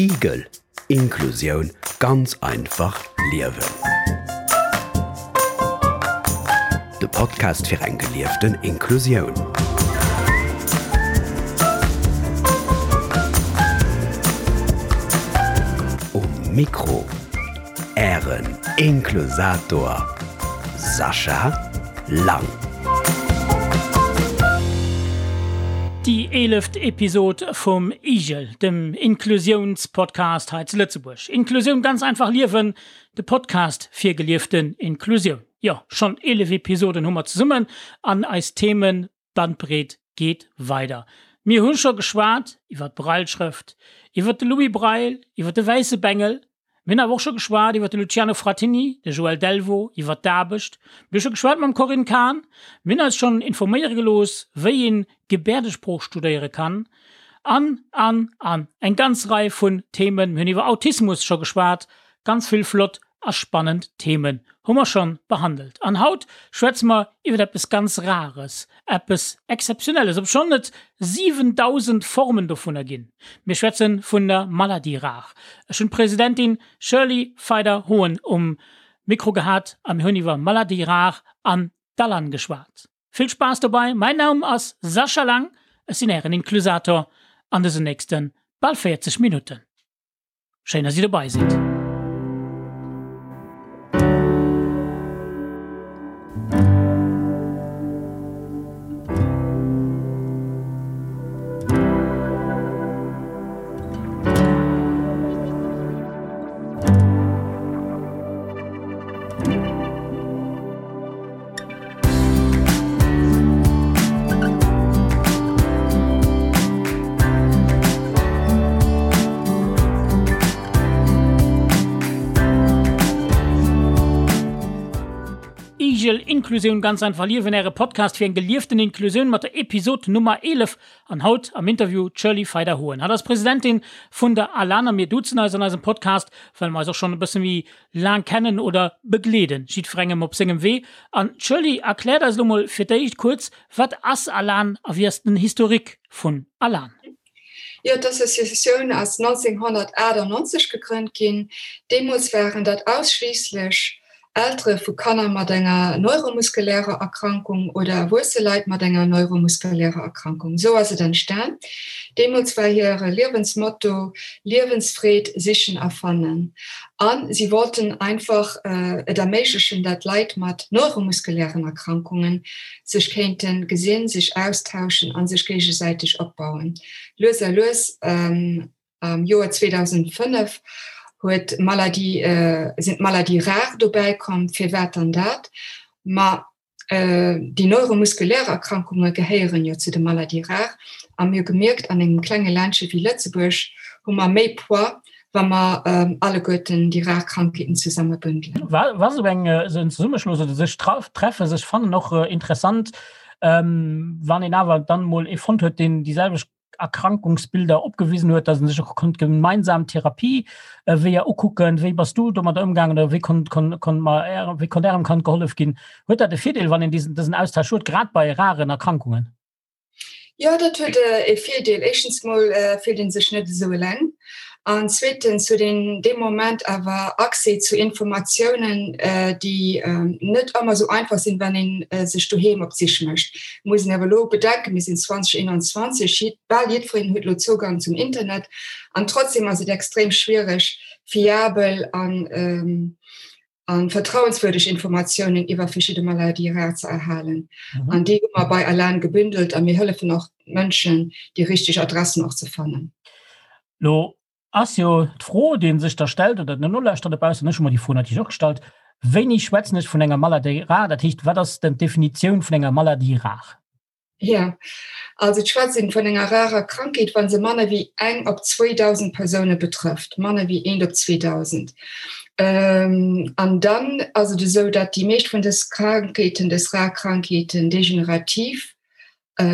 Igel, Inklusioun ganz einfach liewen. De Podcast fir eng gelieften Inklusioun. Um Mikro Ären Inklusator Sascha Lang. Déi eeleft Episod vum IGEL, dem Inklusiounspodcast hei zu Lëtzebuerg. Inklusioun ganz einfach liewen, de Podcast fir gelieften Inklusioun. Jo, schonn 11 Episoden hu mer zesummen an eis Themenbandbreet geet weider. Mir hu scho geschwat iwwer d'Brailleschrëft, iwwer de Louis Braille, iwwer de wäisse Bengel, Mir hunn awer och scho geschwat iwwer de Luciano Frattini, de Joël Delvaux, iwwer d'Aarbecht. Mir hu scho geschwat mam Corinne Cahen. Mir hunn eis schonn informéiere gelooss, wéi een Gebäerdesprooch studéiere kann. An, an, an. Eng ganz Rei vun Themen. Mir hunn iwwer Autismus scho geschwat. Ganz vill flott a spannend Themen hu mer schonn behandelt. An haut schwätze mer iwwer eppes ganz Rares, eppes Exzeptionelles, obschonn et 7.000 Formen dovunner ginn. Mir schwätze vun der Maladie rare. Ech hunn d'Presidentin Shirley Feider-Hoen um Mikro gehat a mir hunn iwwer Maladie rare an d'Alan geschwat. Vill Spaass dobei, mäin Naum ass Sascha Lang, ech sinn ären Inklusator an dësen nächste bal 40 Minutten. Schéin dass dir dobei sidd. Igel Inklusioun ganz einfach liewen, Äre Podcast fir eng gelieften Inklusioun mat der Episod Nummer 11 an haut am Interview d'Shirley Feider-Hoen. Hatt ass Presidentin vun der ALAN a mir duzen eis an eisem Podcast, well mer eis och schonn e bësse méi laang kennen oder begleeden, jiddwerengem op sengem Wee. An d'Shirley erkläert eis elo mol fir d'éischt kuerz, wat ass Alan a wéi ass den Historique vun Alan? Jo, d'Associatioun ass 1998 gegrënnt ginn. Deemools waren dat ausschliisslech Eltere vu Kanner mat enger neuromuskulärer Erkrankung oder erwuesse Leit mat enger neuromuskulärer Erkrankung. Esou ass et entstan. Deemools war hire Liewensmotto Liewensfreed sichen a fannen. A si wollten einfach et erméiglechen, dat Leit mat neuromuskulären Erkrankunge sech kéinte gesinn, sech austauschen a sech géigesäiteg opbauen. Lues a lues Am Joer 2005 huet d'Maladie, sinn d'Maladies rares dobäi komm. Firwat dann dat? Ma déi neuromuskulär Erkrankunge gehéieren jo zu de Maladies rares a mir hu gemierkt, an engem klenge Ländche wéi Lëtzebuerg hu mer méi Poids, wa mer alleguerten déi rar Krankheeten zesumme bündelen. War esou eng esou en Zesummeschloss oder sech treffen, sech fannen och interessant, wann een awer dann emol ee fonnt huet, deen déi selwecht Erkrankungsbilder opgewisen huet, dass en sech och konnt gemeinsam Therapieweeër ukucken. Wéi bass du domadder ëmgaangen oder wéi konnt, konnt, konnt mer, wéi konnt Ärem Kand gehollef ginn? Huet dat e Virdeel, wann een diesen, dësen Austausch huet, grad bei raren Erkrankungen? Jo, dat huet e Virdeel. Éischtens mol fillt ee sech net esou eleng an zweetens huet een dee Moment awer Accès zu Informatiounen, déi net ëmmer esou einfach sinn, wann ee sech doheem op d'Sich mécht. Muss een awer elo bedenken, mir sinn 2021, bal jiddwereen huet elo Zougang zum Internet an trotzdem ass et extrem schwiereg, fiabel an an vertrauenswürdeg Informatiounen iwwer verschidde Maladie rare ze erhalen. An déi hu mer bei Alan gebündelt a mir hëllefen och Mënschen, déi richteg Adressen och ze fannen. Lo ass jo d'Fro, déi sech da stellt, oder den Nolauschterer dobaussen, ech hu mer déi Fro natierlech och gestallt, Wéini schwätzen ech vun enger Maladie rare? Dat heescht, wat ass denn d'Definitioun vun enger Maladie rare? Jo, also et schwätzt een vun enger rarer Krankheet, wa se manner wéi eng op 2.000 Persoune betrëfft, manner wéi eent op 2.000. An dann ass et esou, datt déi meescht vun dës Krankheeten, dës rar Krankheeten, degenerativ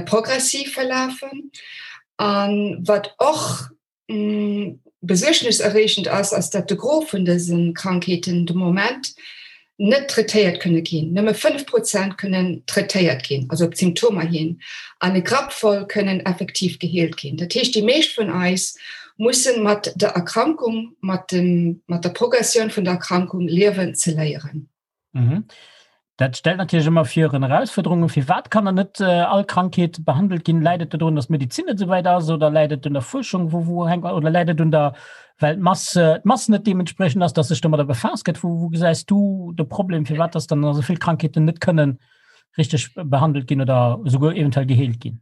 progressiv verlafen. A wat och Besuergneserreegend ass, ass dat de Gros vun dëse Krankheeten de Moment. net traitéiert kënne ginn. Nëmme 5 Prozent kënnen traitéiert ginn, also op d'Symptomer hin, an e Grapp voll kënnen effektiv geheelt ginn. Dat heescht, déi meescht vun eis mussen mat der Erkrankung, mat dem, mat der Progressioun vun der Erkrankung liewen ze léieren. Mhm. Dat stellt natierlech ëmmer virun Erausfuerderungen. Firwat kann dann net all Krankheet behandelt ginn? Läit et dodrun, datt d'Medezin net esou wäit ass oder läit et un der Fuerschung? Wou, wou hänkt, oder läit et un der, well d'Mass, d'Mass net deementspriechend ass, datt sech domadder befaasst gëtt? Wou, wou gesäis du de Problem, firwat datt dann esou vill Krankheeten net kënnen richteg behandelt ginn oder esouguer eventuell geheelt ginn?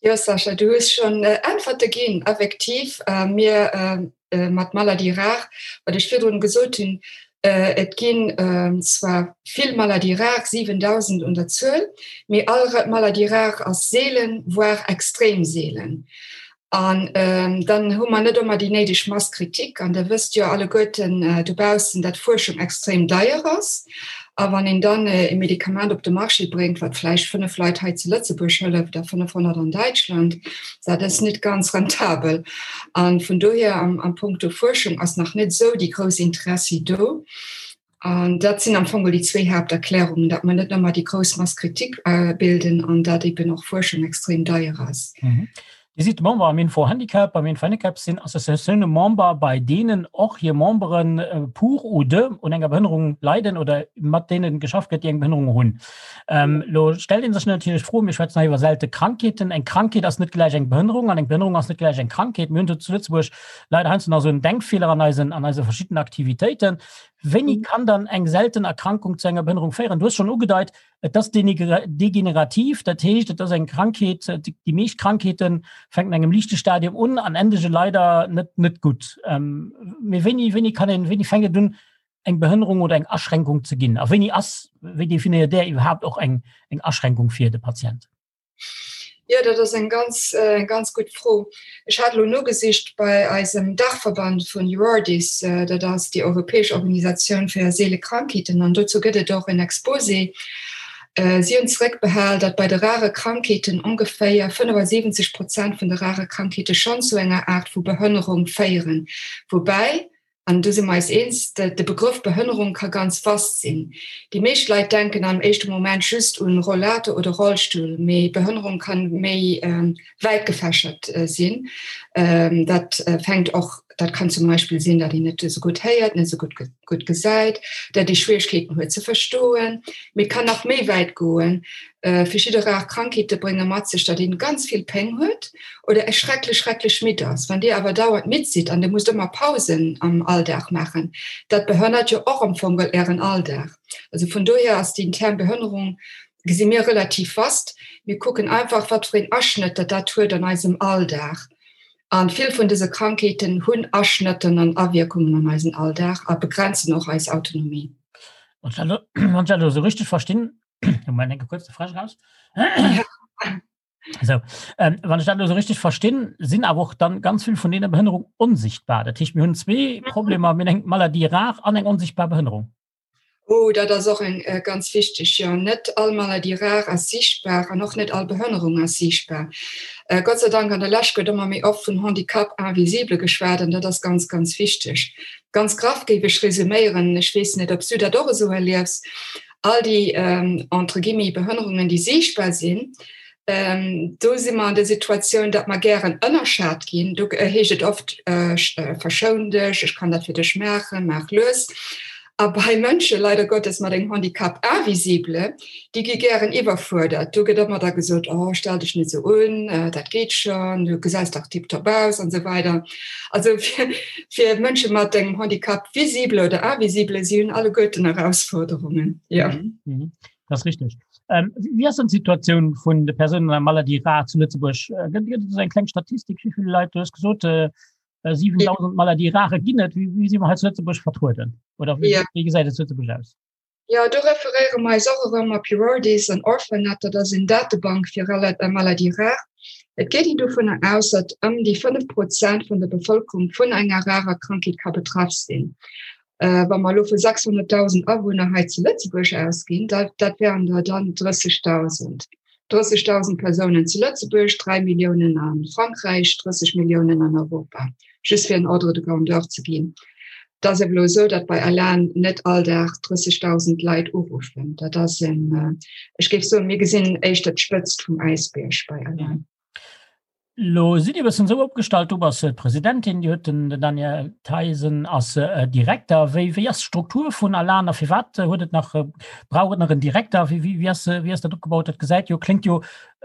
Jo Sascha, du hues schonn Äntwerte ginn. Effektiv, mir mat Maladies rares, wat ech virdrun gesot hunn, et ginn zwar vill Maladies rares, 7.000 un der Zuel, mee all Maladie rare ass seelen, voire extrem seelen. An dann hu mer net ëmmer déi néideg Masse critique. An Der wësst jo alleguerten dobaussen, dat Fuerschung extrem deier ass. A wann een dann e Medikament op de Marché bréngt, wat vläicht 5 Leit hei zu Lëtzebuerg hëlleft a 500 an Däitschland, dat ass net ganz rentabel. A vun dohier am Punkto Fuerschung ass nach net esou déi grouss Interessi do. An dat sinn am Fong déi zwéi Haapterklärungen, datt mer net ëmmer déi grouss Masse critique bilden an datt eben och Fuerschung extrem deier ass. Dir sidd Member am Info-Handicap. Beim Info-Handicap sinn Associatioune Member, bei deenen och hir Membere pour ou de un enger Behënnerung leiden oder mat deene geschafft gëtt, déi eng Behënnerung hunn. Elo stellt ee sech natierlech d'Fro, mir schwätzen hei iwwer selte Krankheeten, eng Krankheet ass net gläich eng Behënnerung an eng Behënnerung ass net gläich eng Krankheet. Mir hunn do zu Lëtzebuerg leider heiansdo nach esou en Denkfeeler an eisen, an eise verschiddenen Aktivitéiten. Wéini kann dann eng selten Erkrankung zu enger Behënnerung féieren? Du hues schonn ugedeit, Et ass degenerativ, dat heescht, et ass eng Krankheet, déi meescht Krankheete fänken an engem liichte Stadium un an endege leider net net gutt. Mee wéini, wéini kann een, wéini fänkt et un, eng Behënnerung oder eng Aschränkung ze ginn? A wéini ass, wéi definéiert Där iwwerhaapt och eng eng Aschränkung fir de Patient? Jo, dat ass eng ganz, eng ganz gutt Fro. Ech hat elo nogesicht bei eisem Daachverband vun Eurordis, dat ass déi europäesch Organisatioun fir seele Krankheeten, an dozou gëtt et och en Exposé. Si hunn zeréckbehal, datt bei de rare Krankheeten ongeféier 75 Prozent vun de rare Krankheete schonn zu enger Aart vu Behënnerung féieren, woubäi An do si mer eis eens, de Begrëff Behënnerung ka ganz vast sinn. Déi meescht Leit denken am éischte Moment just un Rollator oder Rollstull, mee Behënnerung kann méi wäit gefächert sinn. Dat fänkt och, dat kann zum Beispill sinn, datt een net esou gutt héiert, net esou gutt gesäit, datt ee Schwieregkeeten huet ze verstoen. Mee et kann nach méi wäit goen. Verschidde rar Krankheete brénge mat sech, datt een ganz vill Péng huet oder e schrecklech, schrecklech midd ass. Wann Dir awer dauernd midd sidd an Dir musst ëmmer Pausen am Alldag maachen, dat behënnert jo och am Fong Ären Alldag. Also vun dohier ass den Term Behënnerung, gesi mir, relativ vast. Mir kucken einfach, wat fir een Aschnëtt dat dat huet an eisem Alldag. A vill vun dëse Krankheeten hunn Aschnëtten an Awierkungen an eisen Alldag a begrenzen och eis Autonomie. Wann ech dat elo esou richteg verstinn, Moment, enke kuerz de Fräsch raus. So, ähm, wann ich dat so richtig verstinn, sinn awer och dann ganz vill vun deene Behënnerung onsichtbar. Dat heescht mir hunn zwee mhm. Problemer mir eng Maladie rar an eng onsichtbar Behënnerung. Oh, dat ass och eng äh, ganz wichteg ja net all Maladie rar ass sichtbar an och net all Behënnerung ass sichtbar. Äh, Gott sei Dank an der Läch gëtt ëmmer méi oft vun Handicap invisible geschwat an dat ass ganz ganz wichteg. Ganz graff géif ech resuméieren, ech weess net, ob du dat och esou erliefs. All déi entre guillemets Behënnerungen, déi siichtbar sinn, do si mer an der Situatioun, datt mer gären ënnerschat ginn. Do heescht et oft, Verschoun dech, ech kann dat fir dech maachen, maach lues. A bei Mënsche leider Gottes mat engem Handicap invisible, déi gi gären iwwerfuerdert. Do gëtt ëmmer da gesot, Oh, stell dech net esou un, dat geet schonn, du gesäis dach tiptop aus an esou weider. Also fir, fir Mënsche mat engem Handicap visible oder invisible, si hunn alleguerten Erausforderungen. Ja. Mhm. Mhm. Das ist richtig. Ähm, wie ass denn d'Situatioun vun de Persounen an Maladie rare zu Lëtzebuerg? Äh, gëtt gëtt et eng kleng Statistik, wéi vill Leit, du hues gesot, äh, 7000 äh, Maladie rare ginn et. Wéi, wéi si mer hei zu Lëtzebuerg vertrueden? Oder wéi, ja. wéi gesäit et zu Lëtzebuerg aus? Jo, do referéiere mer eis och erëm op Eurordis an Orphanet, dat ass en Datebank fir Maladies rares. Et geet een dovunner aus, datt ëm déi 5 Prozent vun der Bevëlkerung vun enger rarer Krankheet ka betraff sinn. Wa mer elo vu 600.000 Awunner hei zu Lëtzebuerg ausginn, dat dat wären der dann 30.000. 30.000 Persounen zu Lëtzebuerg, 3 Milliounen a Frankräich, 30 Milliounen an Europa, just fir en Ordre de grandeur ze ginn. Et ass awer elo esou, datt bei Alan net all Dag 30.000 Leit uruffen. Dat ass en, ech géif soen, mir gesinn éischter d'Spëtzt vum Äisbierg bei Alan. Lo sidd Dir e bëssen esou opgestallt, du bass d'Presidentin, Dir hutt den Daniel Theisen ass Direkter. Wéi, wéi ass d'Struktur vun Alan a firwat huet et nach, brauch et nach en Direkter? Wéi, wéi, wéi ass, wéi ass dat opgebaut? Dat gesäit jo, kléngt jo,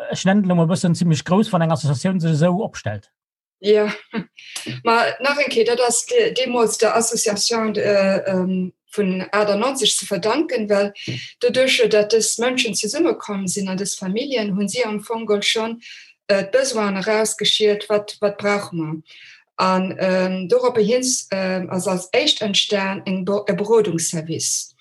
ech nennen et elo mol e bëssen zimmlech grouss, wann eng Associatioun sech esou opstellt. Ja, ma nach eng Kéier, dat ass deemools der Association vun 98 ze verdanken, well doduercher, datt dës Mënschen zesummekomm sinn an dës Familljen, hunn si am Fong geholl schonn d'Besoinen erausgeschielt, wat, wat brauche mer. An doropper hin ass als éischt entstan eng, e Berodungsservice.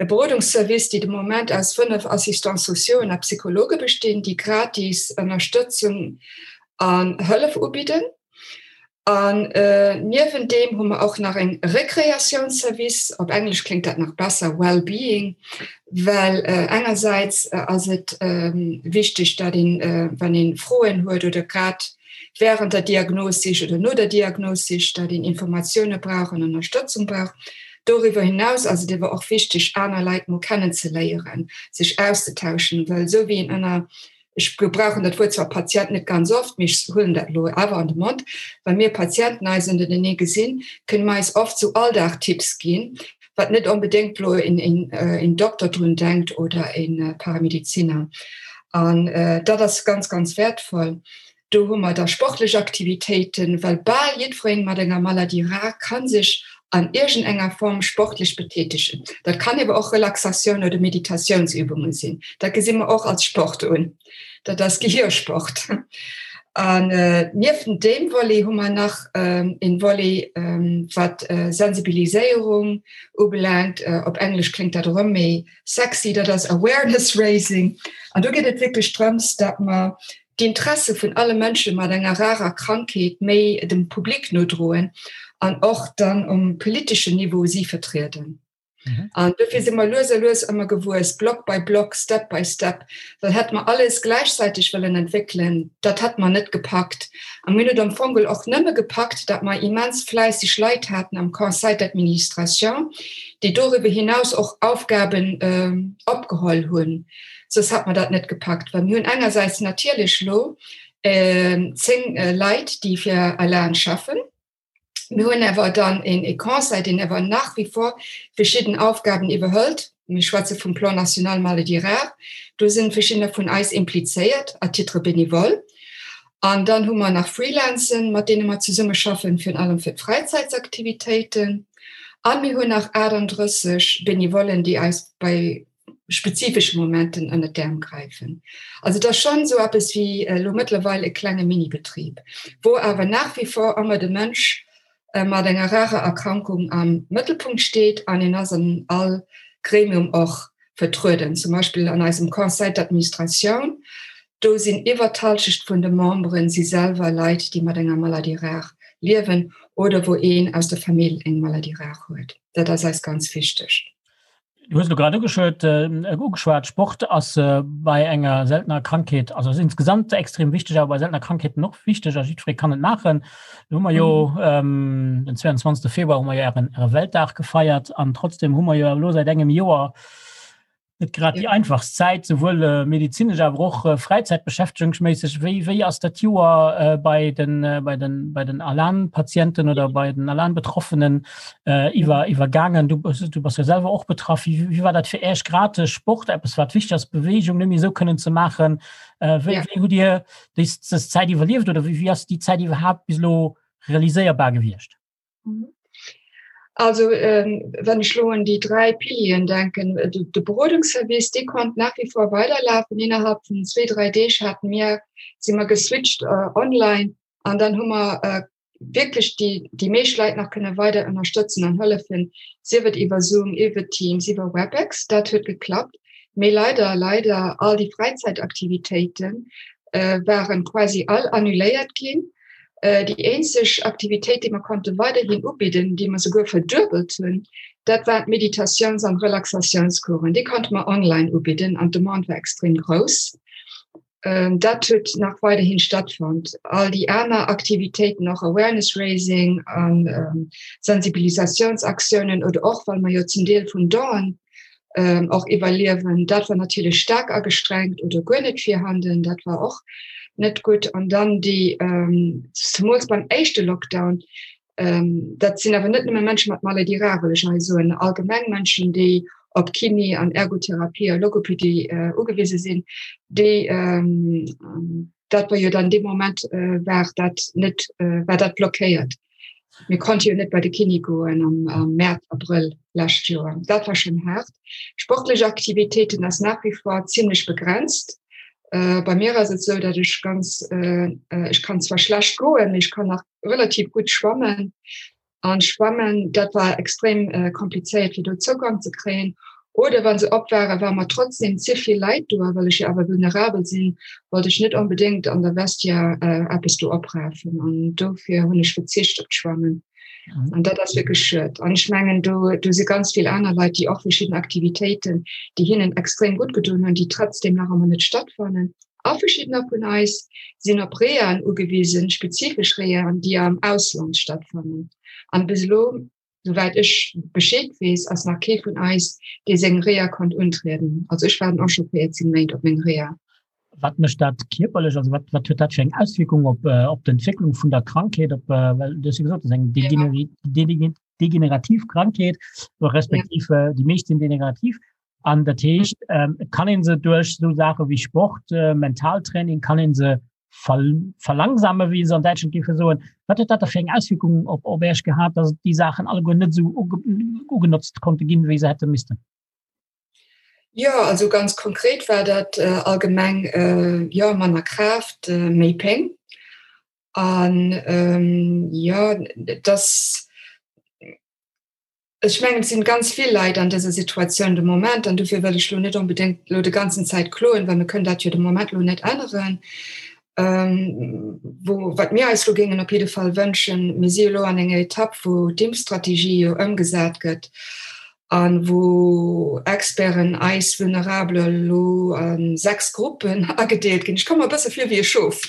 E Berodungsservice, déi de Moment aus 5 Assistants sociauxen a Psychologe bestinn, déi gratis Ënnerstëtzung an Hëllef ubidden. An niewent deem hu mer och nach eng Rekreatiounsservice, op Englesch kléngt dat nach besser, Well-being, well engersäits ass et wichteg, dat een, wann ee Froen huet oder grad während der Diagnossich oder no der Diagnossich, dat een Informatioune brauch an Ënnerstëtzung brauch. Doriwwer hinaus ass et ewer och wichteg, aner Leit mol kennenzeléieren, sech auszetauschen, well esou wéi een ënner Ech gebrauchen dat Wuert zwar Patient net ganz oft, mee ech huelen dat elo awer an de Mond, Wa mir Patienten eis ënnertenee gesinn, kënne mer eis oft sou Alldagtipps ginn, wat net onbedéngt elo een Dokter drun denkt oder e Paramediziner. An dat ass ganz, ganz wäertvoll. Do hu mer da sportlech Aktivitéiten, well bal jiddweree mat enger Maladie rare ka sech an iergendenger Form sportlech betätegen. Dat kann ewer och Relaxatioun oder Meditatiounsübunge sinn. Dat gesi mer och als Sport un. Dat ass Gehirsport. An niewent deem Volet hu mer nach een Volet, wat Sensibiliséierung ubelaangt. Op Englesch kléngt dat erëm méi sexy, dat ass Awareness Raising. An do geet et wierklech drëms, dat mer d'Interesse vun alle Mënsche mat enger rarer Krankheet méi dem Public nodroen an och dann um politeschen Niveau si vertrieden. Mhm. An dofir si mer lues a lues ëmmer gewuess, Block by Block, Step by Step, well hätt mer alles gläichzäiteg wëllen entwéckelen, dat hätt mer net gepackt. A mir hunn et am Fong och nëmme gepackt, dat mer immens fläisseg Leit haten am Conseil d'administration, déi doriwwer hinaus och Aufgaben äh, opgeholl hunn. Soss hätt mer dat net gepackt, well mir hunn engersäits natierlech lo 10 Leit, déi fir Alan schaffen. Mir hunn awer dann een e Conseil, deen awer nach wie vor verschidden Aufgaben iwwerhëlt. Mir schwätze vum Plan national maladies rares. Do sinn verschiddener vun eis implizéiert à titre bénévole. An dann hu mer nach Freelancen, mat deene mer zesummeschaffen, virun allem fir d'Fräizäitsaktivitéiten. A mir hunn nach 38 Benevollen, déi eis bei spezifesche Momenten ënner d'Äerm gräifen. Also et ass schonn esou eppes wéi elo mëttlerweil e klenge Minibetrib, wou awer nach wie vor ëmmer de Mënsch mat enger rarer Erkrankung am Mëttelpunkt steet an en ass an all Gremium och vertrueden. Zum Beispill an eisem Conseil d'administration, do sinn iwwer d'Halschecht vun de Memberen si selwer Leit, déi mat enger Maladie rare liewen oder wou een aus der Famill eng Maladie rare huet. Dat ass eis ganz wichteg. Du hues elo grad ugeschwat, äh, ugeschwat, Sport ass äh, bei enger seltener Krankheet, also ass insgesamt extrem wichteg, awer bei seltener Krankheeten och wichteg a jiddweree kann et maachen. Do hu mer jo mhm. ähm, den 22. Februar hu mer jo ären, äre Weltdag gefeiert an trotzdem hu mer jo elo seit engem Joer net grad ja. déi einfachst Zäit, souwuel äh, medizinesch, awer och äh, fräizäitbeschäftegungsméisseg. Wéi, wéi ass dat Joer äh, bei den, äh, bei den, bei den Alan-Patienten oder bei den Alan-Betroffenen äh, iwwer iwwergaangen du du bass jo selwer och betraff wie, wie war dat fir Äech grad de Sport eppes wat wichteg ass Bewegung nëmme sou kënnen ze maachen äh, wéi, ja. wéi hutt Dir déi dës Zäit iwwerlieft oder wéi, wéi ass déi Zäit iwwerhaapt bis elo realiséierbar gewiescht? Mhm. Also ähm, wenn ech lo un déi dräi Pilieren denken, äh, de, de Berodungsservice, dee konnt nach wie vor weiderlafen. Innerhalb vun zwee, dräi Deeg haten mir, si mer geswitcht äh, online an dann hu mer äh, wierklech déi, déi meescht Leit nach kënne weider ënnerstëtzen an hëllefen, sief et iwwer Zoom, iwwer Teams, iwwer Webex, dat huet geklappt. Mee leider, leider, all déi Fräizäitaktivitéite waren quasi all annuléiert ginn. Déi eenzeg Aktivitéit, déi mer konnte weiderhin ubidden, déi mer souguer verduebelt hunn, dat waren d'Meditatiouns an Relaxatiounscoursen. Déi konnte mer online ubidden an d'Demande war extrem grouss. Dat huet nach weiderhin stattfonnt. All déi aner Aktivitéiten, och Awareness Raising an Sensibilisatiounsaktiounen oder och well mer jo zum Deel vun Donen och iwwerliewen, dat war natierlech staark agestrengt oder guer net virhanden. Dat war och net gutt. An dann déi, zemools beim éischte Lockdown, Dat sinn awer net nëmme Mënsche mat Maladie rare, wëll ech hei soen, allgemeng Mënschen, déi op Kiné an Ergotherapie a Logopedie ugewise sinn, déi dat war jo dann dee Moment war dat net war dat blockéiert. Mir konnte jo net bei de Kiné goen am Mäerz, Abrëll lescht Joer. Dat war schonn haart. Sportlech Aktivitéiten ass nach wie vor zimmlech begrenzt. Bei mir ass et esou, datt ech ganz ech kann zwar schlecht goen, mee ech kann nach relativ gutt schwammen. An schwammen dat war extrem äh, komplizéiert fir do Zougang ze kréien. Oder wann se op waren, war mer trotzdem ze vill Leit do, well ech jo awer vulnerabel sinn, wollt ech net onbedéngt an der Vestiaire äh, eppes do oprafen. An dofir hunn ech verzicht op d'Schwammen. Mhm. An dat ass wierklech schued. An ech mengen do, do si ganz vill aner Leit, déi och verschidden Aktivitéiten, déi hinnen extrem gutt gedoen hunn, déi trotzdem nach ëmmer net stattfannen. A verschiddener vun eis sinn op Rehaen ugewisen, spezifesch Rehaen, déi am Ausland stattfannen. An bis elo, souwäit ech Bescheed weess, ass nach kee vun eis, dee seng Reha konnt untrieden. Also ech waarden och scho 14 Méint op meng Reha. Wat mécht dat kierperlech? Also wat, wat huet dat fir eng Auswierkung op, op d'Entwécklung vun der Krankheet, op, well du hues jo gesot, dat ass eng degenerativ Krankheet, respektiv déi meescht sinn degenerativ. An dat heescht, et kann een se duerch esou Saache wéi Sport, Mentaltraining, kann een se verlangsame, wéi se an Däitschland géife soen. Wat huet dat da fir eng Auswierkung op op Iech gehat, datt déi Saachen alleguer net esou ugenotzt konnte ginn, wéi se hätte missten? Jo, also ganz konkret war dat allgemeng, jo, manner Kraaft, méi Péng. An jo, dass Ech mengen, et sinn ganz vill Leit an dëser Situatioun de Moment, an dofir wëll ech elo net onbedéngt elo de ganzen Zäit kloen, well mir kënnen dat jo de Moment elo net änneren. Wou, wat mir eis elo géingen op jidde Fall wënschen, mir si elo an enger Etapp, wou d'Impfstrategie jo ëmgesat gëtt a wou Experten eis Vulnerabel elo a 6 Gruppen agedeelt ginn. Ech komme mer e bësse vir wéi e Schof.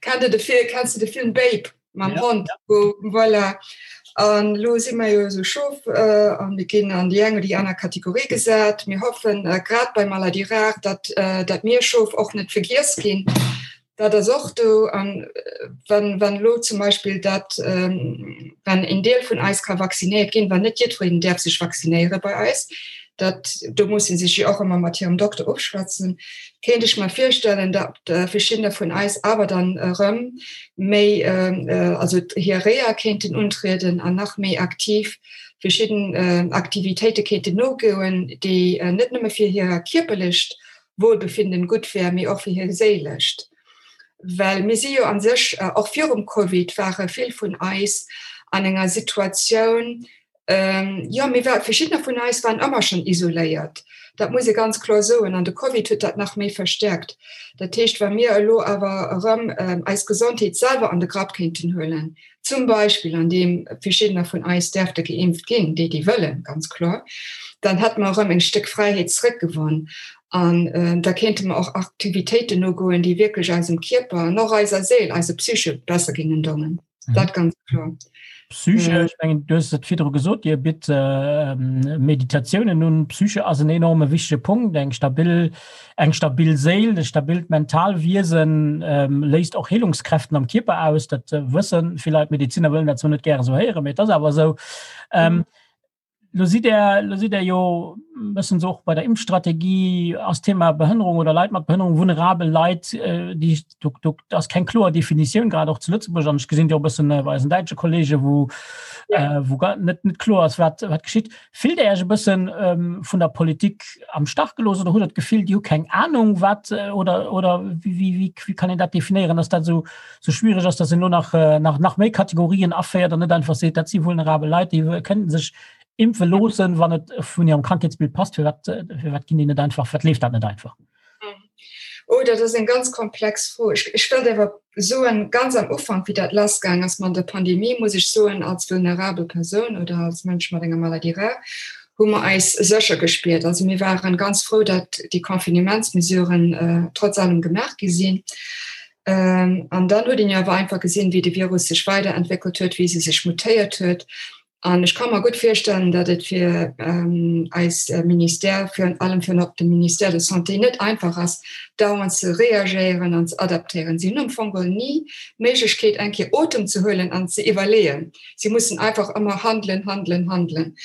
Kennt Der de Film, kenns de de Film Babe? mam ja, Hond ja. Wo, voilà. An lo si mer jo so Schof äh, an mir ginn an déi eng oder déi aner Kategorie gesat. Mir hoffen äh, grad bei Maladie rare, dat, äh, dat mir Schof och net vergiess ginn. Dat ass och do an äh, wann, wann lo zum Beispiel dat ähm, wann en Deel vun eis ka vaccinéiert ginn, wann net jiddwereen däerf sech vaccinéiere bei eis, dat do muss si sech jo och ëmmer mat hirem Dokter ofschwätzen, kéint ech mer virstellen, dat äh, verschiddener vun eis awer dann erëm méi also hir Reha kéinten untrieden an nach méi aktiv verschidden Aktivitéite kéinten nogoen, déi net nëmme fir hir kierperlecht Wohlbefinden gutt wär, mee och fir hir séilescht. Well mir si jo a sech, och virum Covid ware vill vun eis an enger Situatioun, Jo, mir war, verschiddener vun eis waren ëmmer schonn isoléiert. Dat muss ee ganz kloer soen. An de Covid huet dat nach méi verstärkt. Dat heescht, wa mir elo awer erëm eis Gesondheet selwer an de Grapp kéinten huelen, zum Beispill andeem verschiddener vun eis däerfte geimpft ginn, déi, déi wëllen, ganz kloer, dann hätte mer erëm eng Stéck Fräiheet zrëckgewonn. An da kéinte mer och Aktivitéiten nogoen, déi wierklech eisem Kierper an och eiser Séil, eiser Psyche besser géingen dongen. Mhm. Dat ganz klar. Psyche, äh, ich mengen, du hast et virdru gesot, Dir bitt äh, Meditatiounen un. Psyche ass en enorme wichtege Punkt, eng stabil, eng stabil Séil, e stabilt Mentalwiesen ähm, léist och Heelungskräften am Kierper aus. Dat äh, wëssen vill Leit, Mediziner wëllen dat zwar net gäre sou héieren, mee et ass awer esou. Ähm, mhm. Lo sidd Der, lo sidd Der jo bëssen so och bei der Impfstrategie ass Thema Behënnerung oder Leit mat Behënnerung, vulnerabel Leit, äh, déi do, do ass keng kloer Definitioun, grad och zu Lëtzebuerg an ech gesinn Dir och bëssen äh, bei eisen däitsche Kollege, wou, ja. äh, wou gar net, net kloer ass, wat, wat geschitt. Fillt Der Iech e bëssen ähm, vun der Politik am Stach gelooss oder hutt Der d'Gefill, déi hu keng Ahnung, wat äh, oder, oder wéi, wéi, wéi, wéi kann een dat definéieren, dass dat esou sou schwierig ass, dass en lo nach, äh, nach, nach méi Kategorien aféiert an net einfach seet, dat si vulnerabel Leit, déi kënnten sech impfe loossen, wann et vun hirem Krankheetsbild passt. Firwat, äh, firwat ginn déi net einfach, firwat leeft dat net einfach? Oh, dat ass eng ganz komplex Fro. Ech, ech wëllt awer soen, ganz am Ufank, wéi dat lassgaang ass mat der Pandemie, muss ech soen, als vulnerabel Persoun oder als Mënsch mat enger Maladie rare, hu mer eis sécher gespiert. Also mir waren ganz frou, datt déi Confinementsmesuren trotz allem gemaach gi sinn. An dann huet een jo awer einfach gesinn, wéi de Virus sech weiderentwéckelt huet, wéi se sech mutéiert huet. An ech ka mer gutt virstellen, datt et fir eis Ministère, virun allem virun op de Ministère de Santé net einfach ass, dauernd ze reagéieren an ze adaptéieren. Si hunn am Fong geholl ni d'Méiglechkeet, eng Kéier Otem ze huelen an ze iwwerleeën. Si mussen einfach ëmmer handelen, handelen, handelen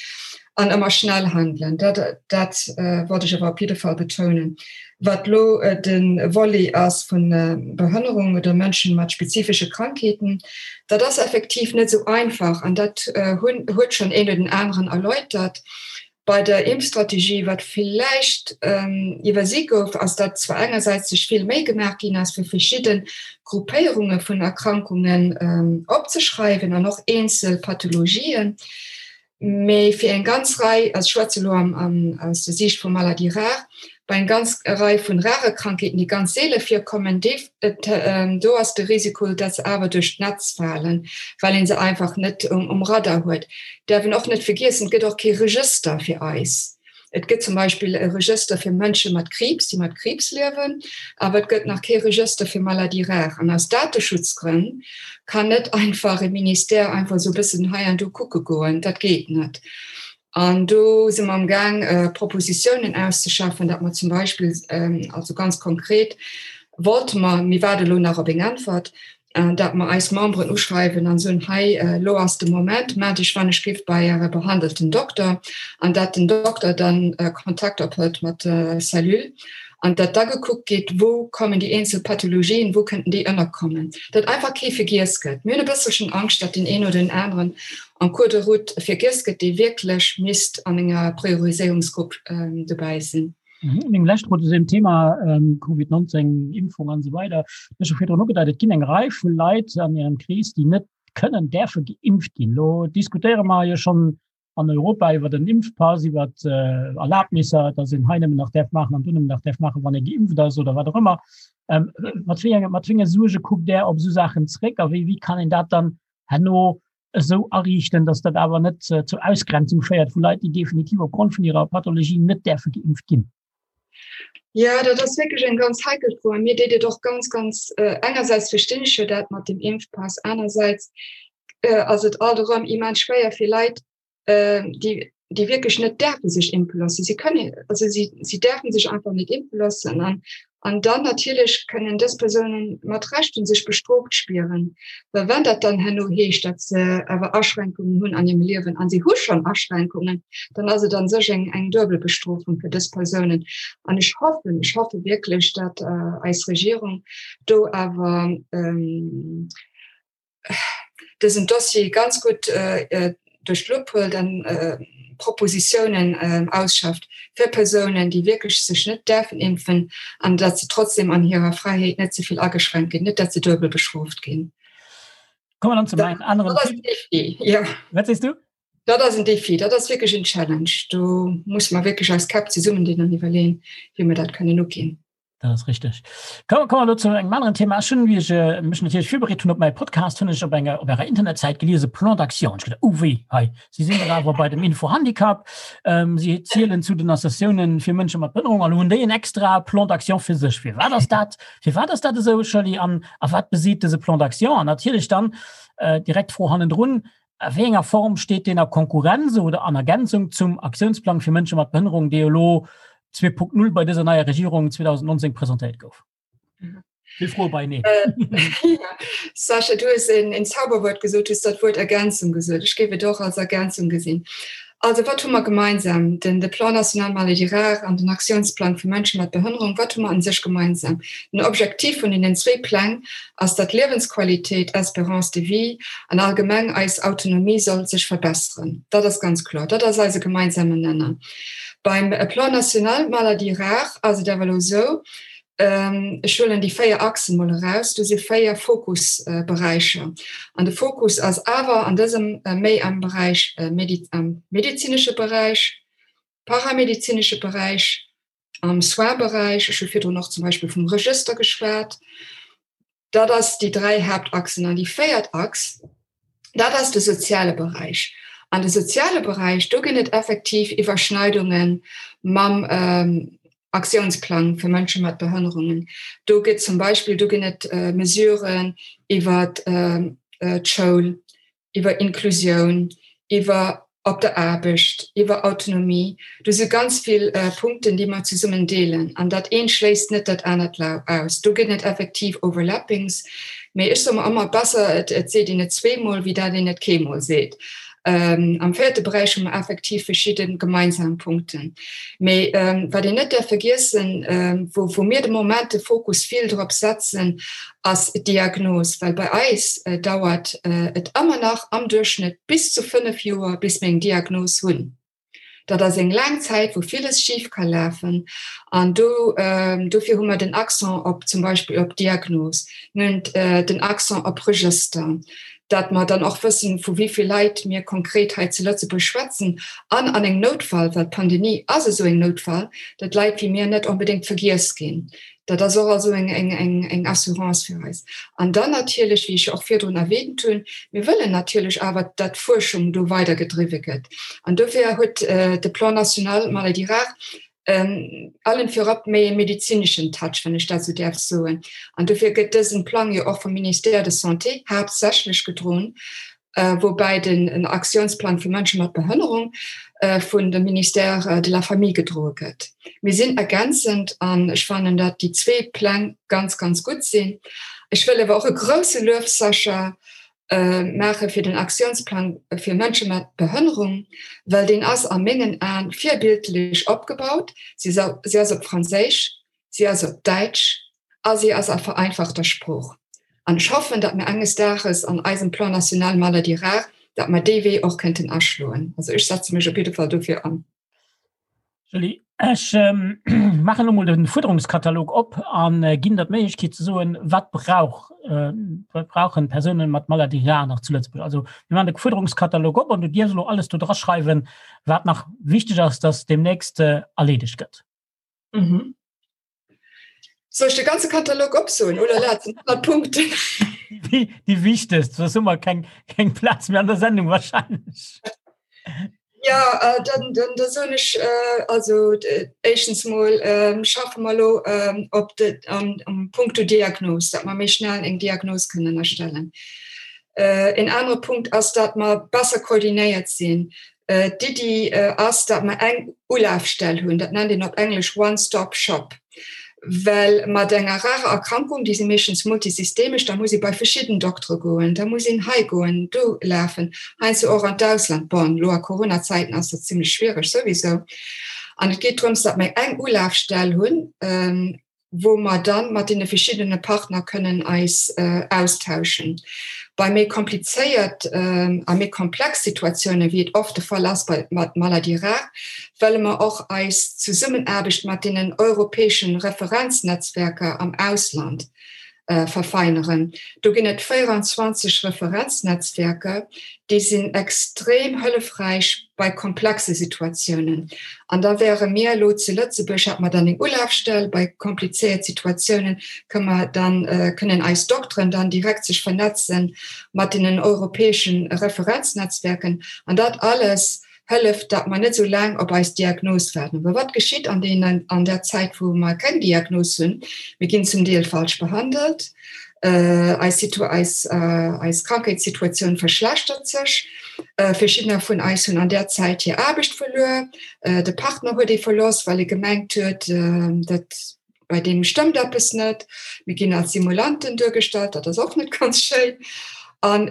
an ëmmer schnell handelen. Dat, dat wollt ech awer op jidde Fall betounen. Wat elo de Volet ass vu Behënnerung oder Mënschen mat spezifesche Krankheeten, dat ass effektiv net esou einfach an dat hunn, huet schonn een oder den aneren erläutert. Bei der Impfstrategie, wat villäicht iwwersi gouf, ass, datt zwar engersäits sech vill Méi gemaach ginn ass, fir verschidde Gruppéierunge vun Erkrankungen opzeschreiwen an och eenzel Pathologien, Mee fir eng ganz Rei, also ech schwätze elo aus der Siicht vu Maladies rares, bei eng ganz Rei vun rare Krankheeten, déi ganz seele virkommen, do ass de Risiko, datt se awer duerch d'Netz falen, well ee se einfach net um Radar huet. Däerf een och net vergiessen, et gëtt och kee Regëster fir eis. Et gëtt zum Beispill e Regëster fir Mënsche mat Kriibs, déi mat Kriibs liewen, awer et gëtt nach kee Regëster fir Maladies rares. An aus Dateschutzgrënn kann net einfach e Ministère einfach esou e bëssen hei an do kucke goen. Dat geet net. An do si mer amgaang, Propositiounen auszeschaffen, datt mer zum Beispill, also ganz konkret wollte mer, mir waarde elo nach op eng Äntwert, datt mer eis Memberen uschreiwen an soen, hei elo ass de Moment, mellt Iech wann ech giff bei Äre behandelten Dokter, an datt den Dokter dann Kontakt ophëlt mat der Cellule an datt da gekuckt gétt, wou kommen déi eenzel Pathologien, wou kënnten déi ënnerkommen, datt einfach kee vergiess gëtt. Mir hunn e bësselchen Angscht, datt deen een oder den aneren en cours de route vergiess gëtt, dee wierklech misst an enger Prioriséierungsgrupp dobäi sinn. Meng lescht Fro zu deem Thema Covid 19, Impfung an esou weider. Du hues scho virdrun ugedeit, et ginn eng Rei vu Leit an Ärem Krees, déi net kënnen, däerfe geimpft ginn. Elo diskutéiere mer jo schonn an Europa iwwer den Impfpass, iwwer Erlaabnisser, datt een hei nëmmen nach däerf maachen an do nëmmen nach däerf maachen, wann ee geimpft ass oder wat och ëmmer. Mat wéi enge, mat wéi enge Suerge kuckt Där op esou Saachen zréck a wéi, wéi kann een dat dann herno esou ariichten, dass dat awer net zur Ausgrenzung féiert vu Leit, déi definitiv opgrond vun hirer Pathologie net däerfe geimpft ginn? Jo, dat ass wierklech eng ganz heikel Fro. A mir deet et och ganz, ganz, engersäits verstinn ech jo dat mat dem Impfpass, anersäits ass et alt erëm immens schwéier fir Leit, déi, déi wierklech net däerfe sech impfe loossen. Si kënnen, also si, si däerfe sech einfach net impfe loossen. An, an dann natierlech kënnen dës Persounen mat Recht sech bestrooft spieren. Well wann dat dann herno heescht, datt se awer Aschränkungen hunn an hirem Liewen, an si hu schonn Aschränkungen, dann ass et a sech eng, eng duebel Bestrofung fir dës Persounen. An ech hoffen, ech hoffe wierklech, datt eis Regierung do awer, dësen Dossier ganz gutt duerch d'Lupp huelt an Propositiounen ausschafft fir Persounen, déi wierklech sech net däerfen impfen, an datt se trotzdem an hirer Fräiheet net ze vill ageschränkt ginn, net datt se duebel bestrooft ginn. Kommen wir dann zu meinem anderen Dat ass en Défi, jo. Wat sees du? Dat ass en Défi, dat ass wierklech en Challenge. Do musse mer wierklech eis Käpp zesummendinn an iwwerleeën, wéi mer dat kënnen uginn. Dat ass richteg. Komme komme elo zu engem aneren Thema. Ech hunn, wéi ech äh, mech natierlech virbereet hunn op mäi Podcast, hunn ech op enger op ärer Internetsäit geliese Plan d'action. Ech gedacht, oh wéi, hei, si sinn dach awer bei dem Info-Handicap, ähm, si zielen zu den Associatiounen fir Mënsche mat Behënnerung an hunn déi en extra Plan d'action fir sech. Firwat ass dat, firwat ass dat esou, Shirley, an a wat beseet dëse Plan d'action? An natierlech dann äh, direkt d'Fro hannendrun, A wéi enger Form steet deen a Konkurrenz oder an Ergänzung zum Aktiounsplang fir Mënsche mat Behënnerung, dee elo 2.0 bei dëser neier Regierung 2019 presentéiert gouf? Vill Froe beieneen. Sascha, du hues en Zauberwuert gesot, du hues dat Wuert Ergänzung gesot. Ech géif et och als Ergänzung gesinn. Also wat hu mer gemeinsam? Den de Plan national maladies rares an den Aktiounsplang fir Mënsche mat Behënnerung, wat hu mer an sech gemeinsam? Den Objektiv vun deenen zwéi Pläng ass, datt d'Liewensqualität, Espérance de vie an allgemeng eis Autonomie soll sech verbesseren. Dat ass ganz kloer, dat ass eise gemeinsamen Nenner. Beim Plan national maladies rares ass et awer elo esou, Ech huelen déi 4 Achsen mol eraus. Do si 4 Fokusberäicher. An de Fokus ass awer an dësem méi am Beräich, am medezinesche Beräich, paramedezinesche Beräich, am Soins-Beräich. Ech hu virdrun och zum Beispill vum Regëster geschwat. Dat ass déi 3 Haaptachsen. An déi véiert Achs, Dat ass de soziale Beräich. An de soziale Beräich, do ginn et effektiv Iwwerschneidunge mam Aktiounsplang fir Mënsche mat Behënnerungen. Do gëtt zum Beispill, do ginn et Mesuren iwwer d'Schoul, iwwer Inklusioun, iwwer op der Aarbecht, iwwer Autonomie. Do si ganz vill Punkten, déi mer zesummen deelen. An dat eent schléisst net dat anert aus. Do ginn et effektiv Overlappings. Mee ech soe mer ëmmer, besser et seet een et zweemol, wéi dat een et keemol seet. Am véierte Beräich hu mer effektiv verschidde gemeinsam Punkten. Mee wat een net däerf vergiessen, wou mir de Moment de Fokus vill drop setzen, ass d'Diagnos. Well bei eis dauert et ëmmer nach am Duerchschnëtt bis zu 5 Joer, bis mir eng Diagnos hunn. Dat ass eng laang Zäit, wou villes schif ka lafen. An do, dofir hu mer den Accent op zum Beispill op Diagnos. Mir hunn den Accent op Regëster, dat mer dann och wëssen, vu wéi vill Leit mir konkret hei zu Lëtzebuerg schwätzen. An an engem Noutfall, well d'Pandemie ass esou eng Noutfall, datt Leit wéi mir net onbedéngt vergiess ginn. Dat ass och also eng, eng, eng, eng Assurance fir eis. An dann natierlech, wéi ech och virdrun erwähnt hunn, mir wëllen natierlech awer, datt d'Fuerschung do weidergedriwwe gëtt. An dofir huet de Plan national Maladies rares allen virop méi e medezineschen Touch, wann ech dat esou däerf soen. An dofir gëtt dësen Plang jo och vum Ministère de Santé haaptsächlech gedroen, woubäi den Aktiounsplang fir Mënsche mat Behënnerung vun dem Ministère de la Famille gedroe gëtt. Mir sinn ergänzend an ech fannen, datt déi zwee Pläng ganz, ganz gutt sinn. Ech wëll awer och e grouse Luef, Sascha, maache fir den Aktiounsplang fir Mënsche mat Behënnerung, well deen ass a mengen Aen virbildlech opgebaut. Si ass op Franséisch, si ass op Däitsch a si ass a vereinfachter Sprooch. An ech hoffen, datt mir enges Dages an eisem Plan national Maladies rares, datt mer dee Wee och kënnten aschloen. Also ech setze mech op jidde Fall dofir an. Julie, ech maachen elo mol de Fuerderungskatalog op a ginn der d'Méiglechkeet ze soen, wat brauch, wat brauchen Persounen mat Maladie rare nach zu Lëtzebuerg. Also mir maachen de Fuerderungskatalog op an du dierfs elo alles do draschreiwen, wat nach wichteg ass, datt deemnächst erleedegt gëtt. Mhm. Soll ech de ganze Katalog opsoen? Oh la la, et sinn 100 Punkten. Déi, déi wichtegst, soss hu mer keng, keng Plaz méi an der Sendung wahrscheinlech. Ja, äh, dann, dann, da soen ech, äh, also äh, éischtens mol ähm, schaffe mer lo ähm, op de, am, am Punkto Diagnos, dat mer méi schnell eng Diagnos kënnen erstellen. Äh, en anere Punkt ass, dat mer besser koordinéiert sinn. D'Iddi ass, datt mer eng Ulafstell hunn, dat nennt een op Englesch One-Stop-Shop, well mat enger rarer Erkrankung, déi si meeschtens multisystemesch, da muss ee bei verschidden Doktere goen, da muss een hei goen, do lafen, heiansdo och an d'Ausland. Bon, elo a Corona-Zäiten ass dat zimlech schwiereg souwisou. An et geet drëms, datt mer eng Ulafstell hunn, wou mer dann mat deene verschiddene Partner kënnen eis austauschen. Bei méi komplizéiert a méi komplex Situatiounen, wéi et oft de Fall ass bei mat Maladies rares, wëlle mer och eis Zesummenaarbecht mat deenen europäeschen Referenznetzwerker am Ausland verfeineren. Do ginn et 24 Referenznetzwerker, déi sinn extrem hëllefräich bei komplexe Situatiounen. An da wäre mir elo zu Lëtzebuerg, hätte mer dann eng Ulafstell, bei komplizéiert Situatiounen kënne mer dann, kënnen eis Dokteren dann direkt sech vernetze mat deenen europäesche Referenznetzwerken. An dat alles hëlleft, datt mer net esou laang op eis Diagnos waarden. Well wat geschitt an deenen, an der Zäit, wou mer keng Diagnos hunn? Mir ginn zum Deel falsch behandelt, eis Situ, eis, eis Krankheetssituatioun verschlechtert sech. Verschiddener vun eis hunn an där Zäit hir Aarbecht verluer, de Partner huet ee verloss, well e gemengt huet, dat bei deem stëmmt eppes net. Mir ginn als Simulanten duergestallt, dat ass och net ganz schéin. An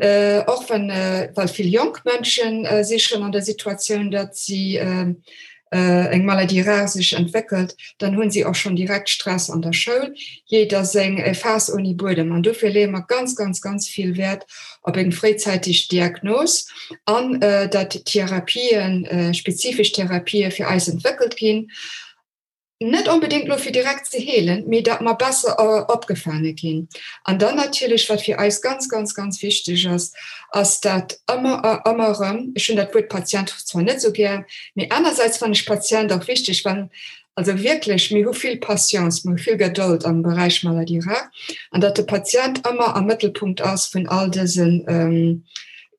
och wann, well vill jonk Mënschen si schonn an der Situatioun, datt si eng Maladie rare sech entwéckelt, dann hunn si och schonn direkt Stress an der Schoul. Jeder seng Faass ouni Buedem. An dofir leeë mer ganz, ganz, ganz vill Wäert op eng fréizäiteg Diagnos an datt Therapien, spezifesch Therapië fir eis entwéckelt ginn. Net onbedéngt elo fir direkt ze heelen, mee datt mer besser opgefaange ginn. An dann natierlech, wat fir eis ganz, ganz, ganz wichteg ass, ass dat ëmmer a ëmmer erëm, ech hunn dat Wuert Patient zwar net esou gär, mee anersäits fannen ech Patient och wichteg, well also wierklech, mir hu vill Patience, mir hu vill Gedold am Beräich Maladie rare, an datt de Patient ëmmer am Mëttelpunkt ass vun all dësen.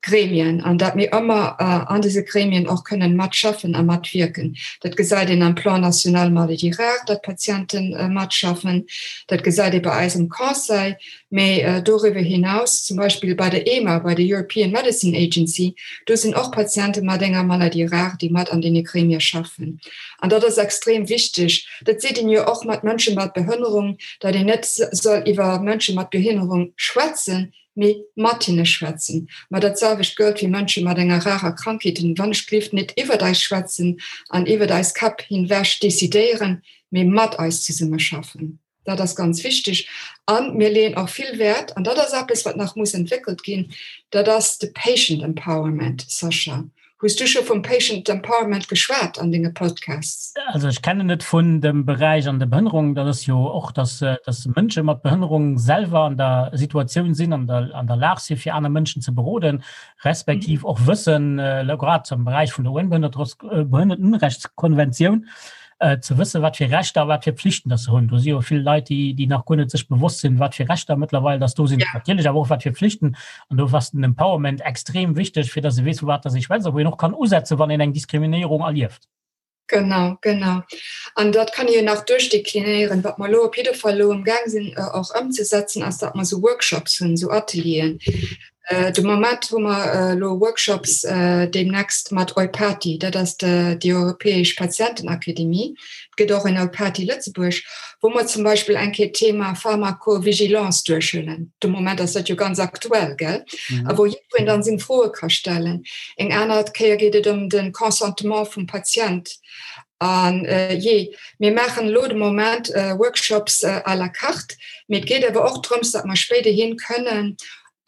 Gremien an dat mir ëmmer an dëse Gremien och kënnen matschaffen a matwierken. Dat gesäit een am Plan national maladies rares, datt Patiente matschaffen, dat gesäit ee bei eis am Conseil, mee doriwwer hinaus zum Beispill bei der EMA, bei der European Medicine Agency, do sinn och Patiente mat enger Maladie rare, déi mat an deene Gremie schaffen. An dat ass extrem wichteg. Dat seet een jo och mat Mënsche mat Behënnerung, datt een net soll iwwer Mënsche mat Behinnerung schwätzen, mee mat hinne schwätzen. Ma dat selwecht gëllt fir Mënsche mat enger rarer Krankheet, wann ech gelift net iwwert eis schwätzen an iwwert eis Käpp hinwech decidéieren, mee mat eis zesummeschaffen. Dat ass ganz wichteg. A mir leeën och vill Wäert, an dat ass eppes, wat nach muss entwéckelt ginn, dat ass de Patient Empowerment. Sascha, hues du scho vum Patient Empowerment geschwat an denge Podcasts? Also ech kennen et vun dem Beräich an der Behënnerung, dat ass jo och, dass, dass Mënsche mat Behënnerung selwer an der Situatioun sinn, an der, an der Lag si fir aner Mënschen ze beroden, respektiv och wëssen, grad am Beräich vun der UN-Behënnertenrechtskonventioun, ze wëssen, wat fir Rechter a wat fir Pflichten dass se hunn. Do si jo vill Leit, déi, déi nach guer net sech bewosst sinn, wat fir Rechter mëttlerweil dass do sinn, ja. natierlech awer och wat fir Pflichten. An do ass den Empowerment extrem wichteg, fir dass e weess, vu wat dass ee schwätzt a wou een och kann usetzen, wann een eng Diskriminéierung erlieft. Genau, genau. An dat kann ee jo nach duerchdeklinéieren. Wat mer elo op jidde Fall elo amgaang sinn och ëmzesetzen, ass, datt mer esou Workshops hunn, esou Atelieren, De Moment hu mer elo Workshops deemnächst mat EUPATI, dat ass déi europäesch Patientenakademie. Et gëtt och en EUPATI Lëtzebuerg, wou mer zum Beispill eng Kéier d'Thema Pharmacovigilance duerchhuelen. De Moment ass dat jo ganz aktuell, gell? A wou jiddwereen dann seng Froe ka stellen. Eng aner Kéier geet et ëm de Consentement vum Patient. An jee, mir maachen elo de Moment Workshops à la carte, mee et geet awer och drëms, datt mer spéiderhin kënnen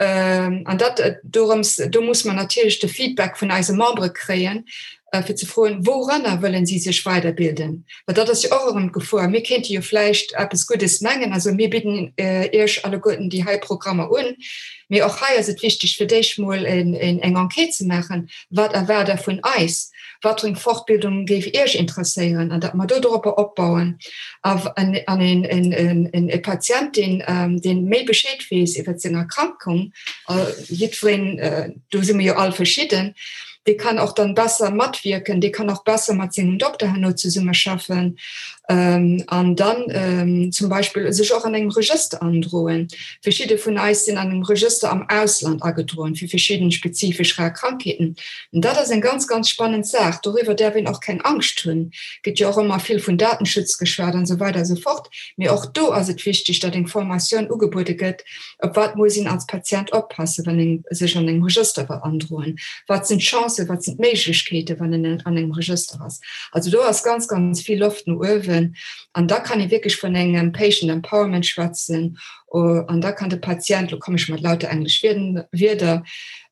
An dat dorëms, do muss mer natierlech de Feedback vun eise Membere kréien, fir ze froen, wouranner wëllen si sech weiderbilden. Well dat ass jo och erëm d'Gefor. Mir kéinte jo vläicht eppes Guddes mengen, also mir bidden Iech alleguerten déi hei Programmer un, mee och hei ass et wichteg, fir d'éischt mol eng Enquête ze maachen, Wat erwaart Der vun eis? Wat fir eng Fortbildung géif Iech interesséieren? An datt mer do doropper opbauen. An e Patient, deen, deen méi Bescheed weess iwwer seng Erkrankung, jiddwereen, do si mer jo all verschidden, dee kann och dann besser matwierken, dee kann och besser mat sengem Dokter herno zesummeschaffen an dann zum Beispill sech och an engem Regëster androen. Verschidde vun eis sinn an engem Regëster am Ausland agedroen fir verschidden spezifesch rar Krankheeten. An dat ass eng ganz, ganz spannend Saach. Doriwwer däerf een och keng Angscht hunn. Gëtt jo och ëmmer vill vun Datenschutz geschwat an esou weider esou fort. Mee och do ass et wichteg, datt eng Formatioun ugebuede gëtt, op wat muss een als Patient oppassen, wann een sech an engem Regëster wëll androen, wat sinn d'Chancen, wat sinn d'Méiglechkeeten, wann een an engem Regëster ass. Also do ass ganz, ganz vill Loft no uewen. An da kann ee wierklech vun engem Patient Empowerment schwätzen. An da kann de Patient, lo komme ech mat lauter englesch Wierder,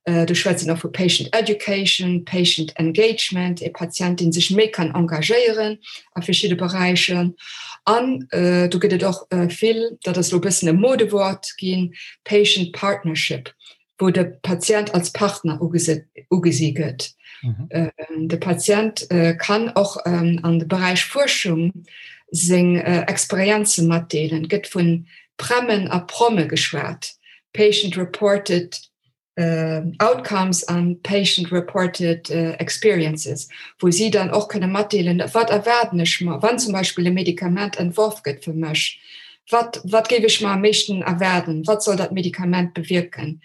do schwätzt een och vu Patient Education, Patient Engagement, e Patient, dee sech méi kann engagéieren a verschidde Beräicher. An do gëtt et och vill, dat ass elo e bëssen e Modewort ginn, Patient Partnership, wou de Patient als Partner ugesi gëtt. De Patient kann och an de Beräich Fuerschung seng Experienze matdeelen. Et gëtt vu PREMen a PROMe geschwat, Patient Reported Outcomes an Patient Reported Experiences, wou si dann och kënne matdeelen, wat erwaarden ech mer, wann zum Beispill e Medikament entworf gëtt fir mech, wat, wat géif ech mer am meeschten erwaarden, wat soll dat Medikament bewierken,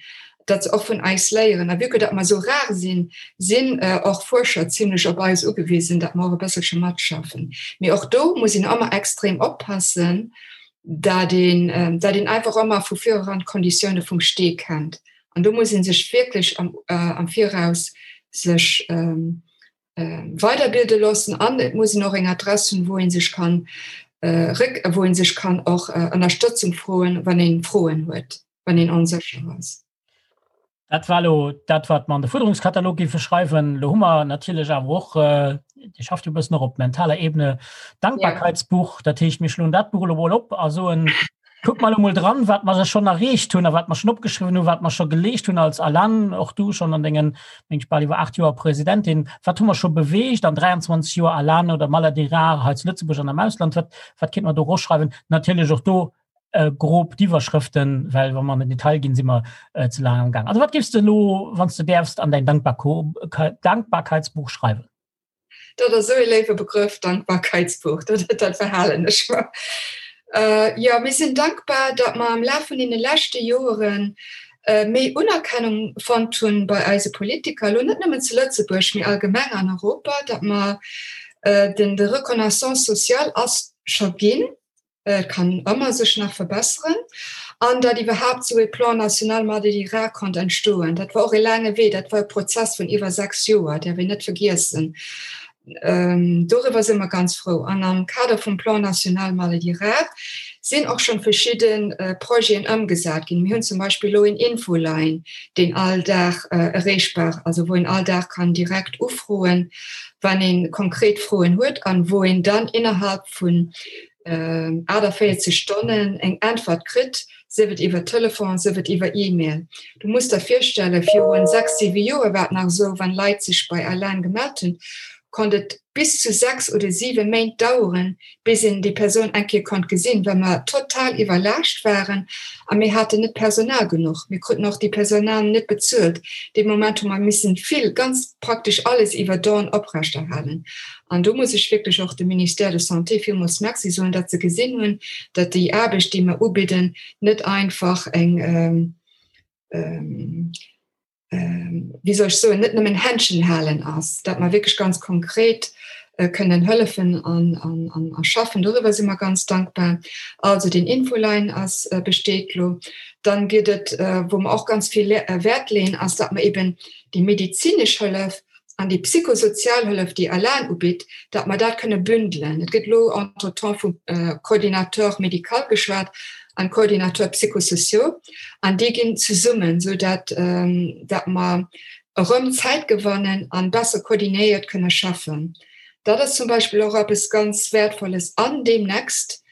datt se och vun eis léieren. A vue que datt mer esou rar sinn, sinn och Fuerscher zimlech op eis ugewisen, datt mer och e bësselche matschaffen. Mee och do muss een ëmmer extrem oppassen, dat een, dat een einfach ëmmer vu vireran d'Konditioune vum Stee kennt. An do muss ee sech wierklech am, am Viraus sech weiderbilde loossen an et muss een och eng Adress hunn, wou ee sech kann réck, wou ee sech kann och Ënnerstëtzung froen, wann ee Froen huet, wann een onsécher ass. Dat war elo dat, wat mer an de Fuerderungskatalog géife schreiwen. Elo hu mer natierlech awer och, Dir schafft jo e bëssen och op mentaler Ebene, d'Dankbarkeitsbuch. Dat heescht, mir schloen dat Buch elo mol op a soen, Kuckt mer elo mol dran, wat mer schonn erreecht hunn a wat mer schonn opgeschriwwen hunn, wat mer scho geleescht hunn als ALAN, och du schonn an dengen, meng ech, bal iwwer 8 Joer Presidentin. Wat hu mer scho beweegt an 23 Joer ALAN oder Maladies rares hei zu Lëtzebuerg an am Ausland? Wat, wat kéint mer do eroschreiwen? Natierlech och do. Grob d'Iwwerschrëften, well wa mer an den Detail ginn, si mer ze laang am Gaang. Also wat géifs de elo, wann s de däerfst, an däin Dankbarkeitsbuch schreiwen? Dat ass esou ee léiwe Begrëff, Dankbarkeitsbuch, dat, dat verhalen ech mer. Jo, mir sinn dankbar, datt mer am Laf vun deene leschte Joere méi Unerkennung fonnt hunn bei eise Politiker, elo net nëmmen zu Lëtzebuerg, mee allgemeng an Europa, datt mer den, de Reconnaissance sociale ass scho ginn, Et kann ëmmer sech nach verbesseren. An datt iwwerhaapt esou ee Plan national Maladies rares konnt entstoen, dat war och e laange Wee, dat war e Prozess vun iwwer 6 Joer, däerf een net vergiessen. Doriwwer si mer ganz frou. An am Kader vum Plan national Maladies rares sinn och schonn verschidde Projeten ëmgesat ginn. Mir hunn zum Beispill elo een Infoline, deen all Dag erreechbar, also wou een all Dag kann direkt ufroen, wann ee konkret Froen huet an wou een dann innerhalb vun 48 Stonnen eng Äntwert kritt, sief et iwwer Telefon, sief et iwwer E-Mail. Du muss der virstellen, virun 6, 7 Joer war et nach esou, wann Leit sech bei ALAN gemellt hunn, konnt et bis zu 6 oder 7 Méint daueren, bis een déi Persoun eng Kéier konnt gesinn, well mer total iwwerlaascht waren a mir haten net Personal genuch. Mir kruten och déi Personal net bezuelt. Dee Moment hu mer missen vill, ganz praktesch alles iwwer Don oprechterhalen. An do muss ech wierklech och dem Ministère de Santé villmools Merci soen, datt se gesinn hunn, datt déi Aarbecht, déi mer ubidden, net einfach eng, wéi soll ech soen, net nëmmen Händchen halen ass, datt mer wierklech ganz konkret kënnen hëllefen an a schaffen. Doriwwer si mer ganz dankbar. Also deen Infoline ass, besteet elo. Dann gëtt et, wou mer och ganz vill Wäert leeën, ass, datt mer eben déi medezinesch Hëllef an déi psychosozial Hëllef, déi ALAN ubitt, datt mer dat kënne bündelen. Et gëtt elo entretemps vum Coordinateur médical geschwat an Coordinateur psychosociaux, an déi ginn zesummen, esou datt datt mer erëm Zäit gewannen an besser koordinéiert kënne schaffen. Dat ass zum Beispill och eppes ganz Wäertvolles. An deemnächst,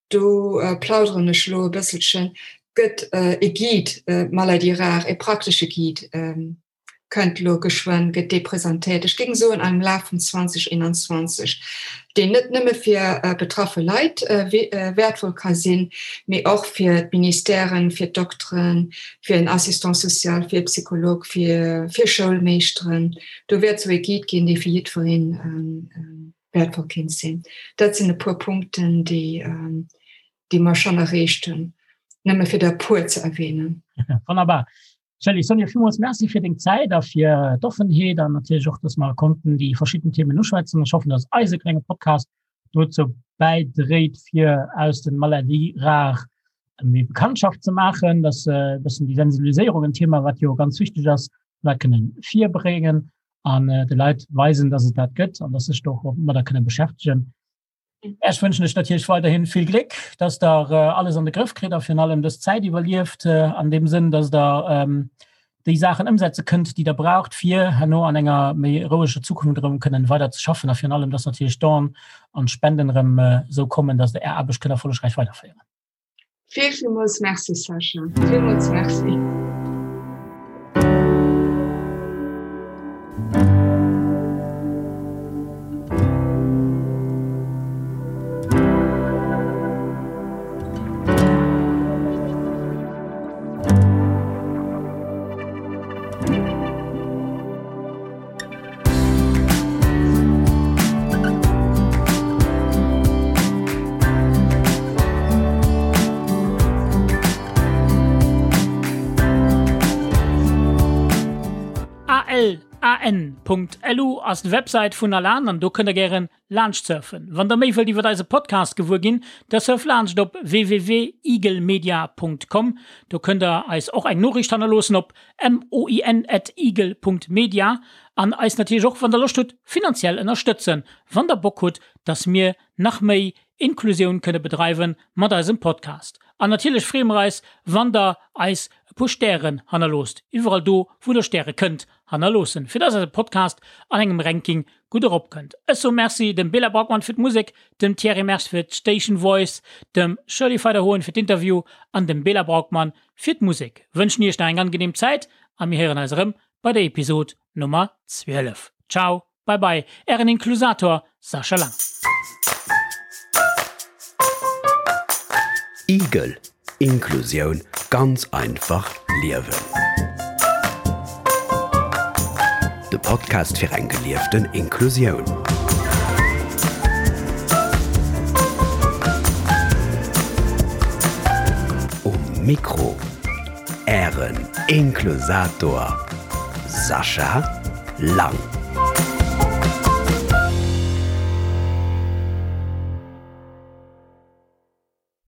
do plauderen ech elo e bësselchen, gëtt e Guide Maladies rares, e praktesche Guide, kënnt elo geschwënn, gëtt dee presentéiert, ech géing soen am Laf vun 2021, deen net nëmme fir betraffe Leit wäertvoll ka sinn, mee och fir d'Ministèren, fir d'Dokteren, fir en Assistant social, fir e Psycholog, fir Schoulmeeschteren. Do wäert esou e Guide ginn, dee fir jiddweree wäertvoll kéint sinn. Dat sinn e puer Punkten, déi déi mer schonn erreecht hunn, nëmme fir der e puer ze erwähnen. Wonnerbar. Shirley, Sonja, villmools Merci fir deng Zäit a fir d'Offenheet an natierlech och, dass mer konnten déi verschidden Themen uschwätzen. Ech hoffen, dass eise klenge Podcast dozou bäidréit, fir aus den Maladies rares méi Bekanntschaft ze maachen, dass e bëssen déi Sensibiliséierung, en Thema, wat jo ganz wichteg ass, d'Leit kënnen virbréngen an de Leit weisen, dass et dat gëtt an dass sech do och domadder kënne beschäftegen. Ech wënschen lech natierlech weiderhin vill Gléck, dass der alles an de Grëff kritt a virun allem dës Zäit iwwerlieft, an deem Sënn, dass der déi Saachen ëmsetze kënnt, déi der braucht, fir herno an enger méi roueger Zukunft erëm kënnen weider ze schaffen a virun allem, dass natierlech d'Don an d'Spenden erëm esou kommen, dass der Är Aarbecht kënnt erfollegräich weiderféieren. Vill, villmools Merci, Sascha. Villmools Merci. ALAN.lu ass d'Websäit vun Alan an do kënnt der gären laanscht surfen. Wann der méi wëllt iwwert eise Podcast gewuer ginn, da surft laanscht op www.eaglemedia.com. Do kënnt der eis och eng Noriicht hannerloossen op moin@eagle.media An eis natierlech och, wann der Loscht hutt, finanziell ënnerstëtzen, wann der Bock hutt, dass mir nach méi Inklusioun kënne bedreiwen mat eisem Podcast. An natierlech freeë mer eis, wann der eis e puer Stären hannerloosst, iwwerall do, wou der Stäre kënnt hannerloossen, fir dass eise Podcast an engem Ranking gutt eropkënnt. Ech soe Merci dem Bela Braukmann fir d'Musek, dem Thierry Mersch fir d'Station Voice, dem Shirley Feider-Hoen fir d'Interview an dem Bela Braukmann fir d'Musek. Wënschen iech nach eng angenehm Zäit a mir héieren eis erëm bei der Episod Nummer 12. Ciao, bye bye, ären Inklusator Sascha Lang. Igel. Inklusioun ganz einfach liewen. De Podcast fir eng gelieften Inklusioun. Um Mikro Ären Inklusator Sascha Lang.